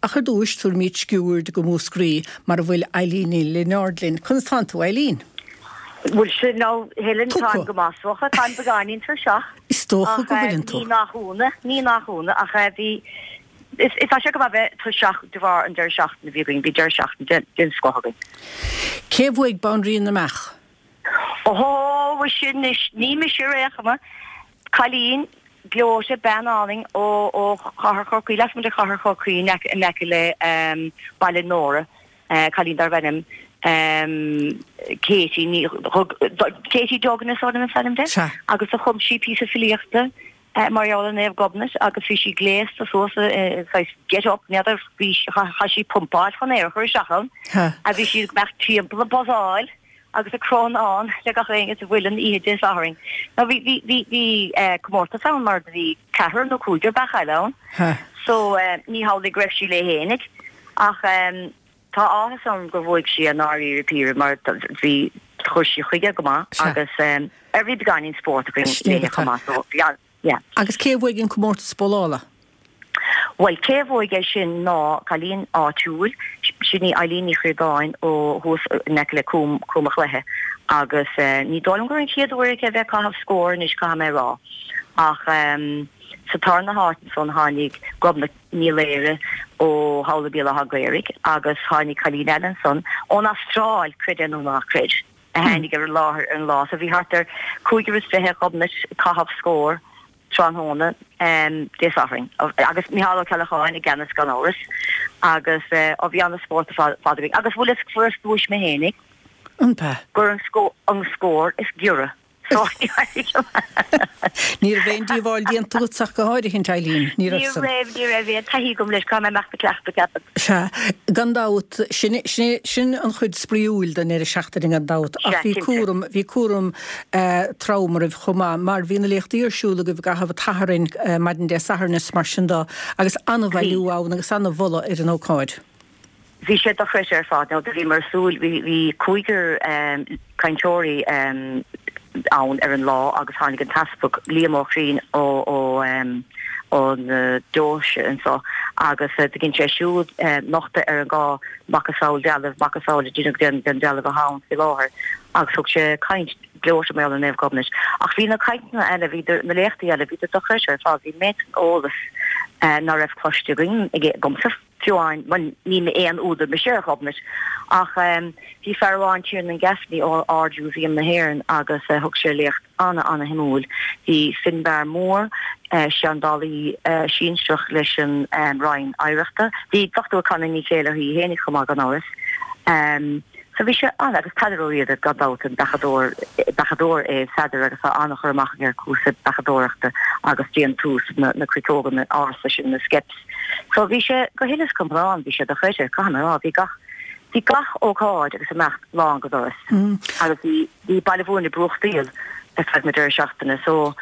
Ach ar dtúis, tabharfaimid sciuird go Múscraí, mar a bhfuil Eileen Ní Lionáird linn. Conas tánn tú, Eileen? Bhuel sin nó Helen, táim go maith is dócha, táim beagáinín tuirseach. Is dócha go bhfuileann tú. Ní nach ionadh, ní nach ionadh, ach bhí, is tá sé go maith bheith tuirseach de bharr an deireadh seachtaine a bhí againn, bhí deireadh seachtaine den scoth againn. Cé a bhuaigh Banríon na mBeach? Ó, mhuise anois, ní mise ar aon chuma. Cailín gleoite, bean álainn ó ó chathair Chorcaí, lasmuigh de chathair Chorcaí in aice in aice le Baile Nóra, cailín darbh ainm Katie Ní Katie Duggan is dóigh liom is ainm di, agus do chum sí píosa filíochta mar gheall ar Naomh Gobnait agus bhí sí gléasta suas i saghas get up, n'fheadar, bhí chaith sí pumpáil chun aer a chur isteach ann, a bhí sí ag imeacht timpeall ag buzzáil. agus ag crónán le gach éinne sa mhuileann oíche Dé Sathairn. Now bhí, bhí, bhí, bhí eh, comórtas ann mar do bhí ceathrar nó cúigear beach eile ann. Ha. So eh, ní hamhlaidh go raibh sí léi fhéinig ach em, tá áthas orm gur bhuaigh sí i ndáiríre píre mar bhí, chuir sí chuige go maith Sea. agus em, ar bhí beagáinín spóirt againn Sin léi chomh maith so bhí an, yeah. Agus cé a bhuaigh an comórtas bólála? Bhuel, cé a bhuaigh é sin ná cailín áitiúil, sin í Eileen Ní Chríodáin ó thuas in aice le Cúm, Cúm a' Chluiche agus ní dóigh liom gur an chéad uair aici a bheith ag caitheamh scór anois, caithfidh mé a rá. Ach sa tarna háit ansan tháinig Gobnait Ní Laoire ó Thamhlaigh Béal Átha Ghaorthaidh agus tháinig cailín eile ansan ón Astráil, creid é nó ná creid, a tháinig ar an láthair ar an lá. So bhí thart ar 25 Ghobnait ag caitheamh scór. tráthnóna Dé Sathairn agus Micheál Ó Ceallacháin i gceannas gan amhras agus ó bhí ana-spórt ar fad againn agus bhfuil fhios fuaireas duais mé fhéinig An b'ea? gur an an scór is giorra so Ní raibh aon díobháil déanta agat ach go háirithint Eileen, ní raibh Ní san. raibh, ní raibh aon taithí agam leis, caithfidh mé imeacht ag cleachtadh ceapaim. Sea, gan dabht, sin, sin, sin an chuid spraíúil den deireadh seachtaine gan dabht, ach Sea, bhí cinnte. cúram, bhí cúram trom oraibh chomh maith, mar bhí na léachtaí ar siúl agaibh i gcaitheamh an tSathairn, maidin Dé Sathairn is mar sin de, agus an-bhailiú ann agus an-mholadh ar an ócáid. Bhí sé dochreidte ar fad. Now do bhíomar ag súil, bhí, bhí cúigear cainteoirí ann ar an lá agus tháinig an tEaspag Liam Ó Criain ó, ó, ón deoise anso agus do dhein sé siúd nochtadh ar an dhá macasamhail dealbh, macasamhail a deineadh den, den dealbh atá ann faoi láthair agus thug sé caint gleoite mar gheall ar Naomh Gobnait. Ach bhí na cainteanna eile, bhí na léachtaí eile, bhíodar dochreidte ar fad, bhí méid san eolas ná raibh cloiste againn, agamsa fiú amháin, bhuel ní aon údar mise ar Ghobnait ach bhí fear amháin, Tiernan Gaffney ó Ard-Mhúsaem na hÉireann agus thug sé léacht ana-ana-shuimiúil. Bhí Finbarr Moore, seandálaí sinsearach leis an Roinn Oidhreachta, bhí Dr Connie Ní Chéilleachair í fhéinig chomh maith gan amhras. So bhí sé an, agus Peadar Ó Riada gan dabht, an beachadóir, beachadóir é Pheadar agus tá an-chur amach aige ar cúrsaí beachadóireachta agus déantús na, na cruiteoga ársa sin, na skeps. So bhí sé go huile is go hiomlán, bhí sé dochreidte, caithfidh mé a rá, bhí gach, bhí gach ócáid agus imeacht lán go doras. Agus bhí, bhí Baile Mhúirne ag brúchtaíl ar feadh na deireadh seachtaine so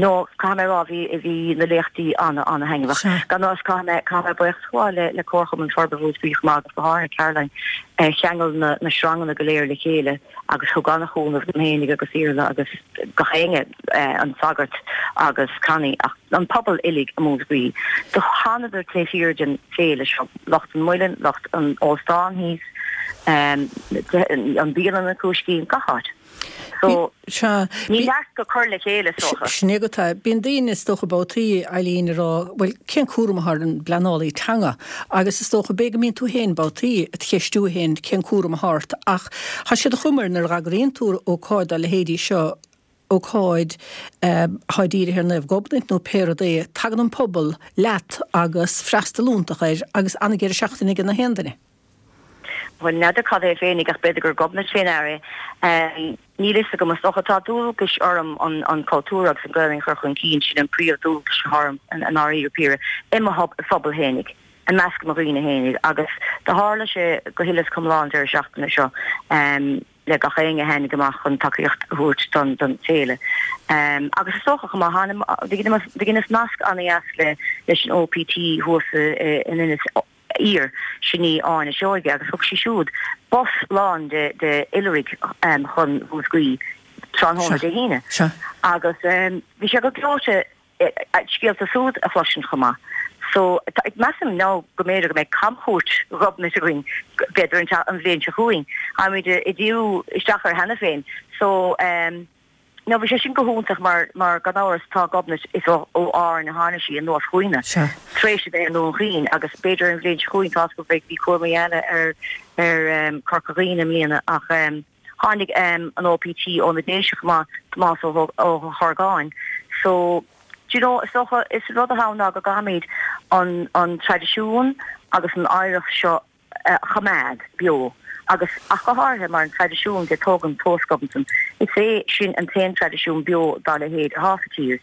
no caithfidh mé a rá bhí bhí na léachtaí ana ana thaitneamhach. Gan amhras caithfidh mé caithfidh mé buíochas a ghabháil le le Comharchumann Forbartha Mhúscraí chomh maith agus go háirithe Caroline a cheangail na na sranganna go léir le chéile agus thug ana chúnamh dom fhéinig agus Iarla agus gach éinne an sagart agus Connie ach an pobal uilig i Múscraí. Do thánadar taobh thiar den féile seo, lucht an Muilinn, lucht an óstáin thíos, an bhialann an Cúiscín, gach áit. So, Sea. ní neart go cur le chéile, is dócha. Sin é agat é. Bíonn daoine, is dócha, babhtaí, Eileen, ag rá, bhuel, cén cúram atá ar an bpleanálaí teanga? Agus is dócha, b'fhéidir go mbíonn tú féin babhtaí ag ceistiú féin cén cúram atá ort ach tá sé de chuma air nuair a dh'eagraíonn tú ócáid dá leithéidí seo, ócáid atá dírithe ar Naomh Gobnait nó pé rud é, tagann an pobal leat agus freastal iontach air agus an-dheireadh seachtaine ag na haon duine. Bhuel, n'fheadar cad é féinig ach b'fhéidir gur Gobnait fé ndear é. Níl fhios agam. Is dócha tá dualgais orm an cultúr agus an Ghaelainn a chur chun cinn, sin an príomh-dhualgas atá orm i ndáiríre píre, i mo phobal fhéinig, i measc mo dhaoine fhéinig agus do tharla sé go huile is go hiomlán an deireadh seachtaine seo le gach éinne a tháinig amach chun tacaíocht a thabhairt don féile. Agus is dócha chomh maith, do dheineas nasc ana-dheas leis an OPT thuas in Inis Oírr, sin í Áine Seoige, agus thug sí siúd bus lán de oilithrigh chun Mhúscraí tráthnóna Dé hAoine. Agus bhí sé go gleoite scéalta súd a chloisint chomh maith. So, measaim now go mb'fhéidir go mbeidh camchuairt Ghobnait againn, b'fhéidir an bhliain seo chugainn. Táimid ag díriú isteach air cheana féin. So, now bhí sé sin go hiontach mar, mar gan amhras tá Gobnait, is ó Árainn a tháinig sí anuas chugainne, tar éis a bheith i nDún Chaoin agus b'fhéidir an bhliain seo chugainn tá's agam beidh, bhí cúramaí eile ar, ar Corca Dhuibhne i mbliana ach, Tháinig an OPT ó na Déise chomh maith, Tomás Ó hOrgáin. So, do you know, is dócha, is rud atá ann ná go gcaithfimid an an traidisiún agus an oidhreacht seo a choimeád beo agus ach go háirithe mar an traidisiún de tógaint tomhas Ghobnatan, is é sin an t-aon traidisiún beo dá leithéid atá sa tír.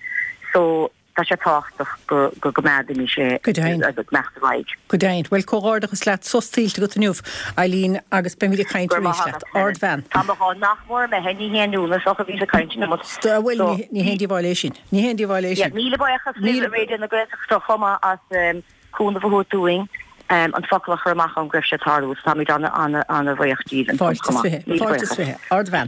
So. Tá sé tábhachtach go gcoimeádfaimis é Go deimhin. agus go mbeadh ar aghaidh. Go deimhin. Bhuel, comhghairdeachas leat, sos tuillte agat inniu, Eileen, agus beimid ag caint Go raibh arís maith leat. agat, Helen. Ardbhean. Tá mo dhá nach mór imithe, ní haon ionadh, is dócha, bhíos ag caint an iomad. Bhuel, So, ní haon díobháil é sin. Ní haon díobháil é yeah, sin. míle buíochas libh Míle. i Raidió na Gaeltachta chomh maith as cúnamh a thabhairt dúinn an focal a chur amach ann go raibh sé ag tarlú. So táimid ana, ana, ana bhuíoch díbh ansan Fáilte chomh is maith. 20. Míle Fáilte is buíochas. 20. Ardbhean.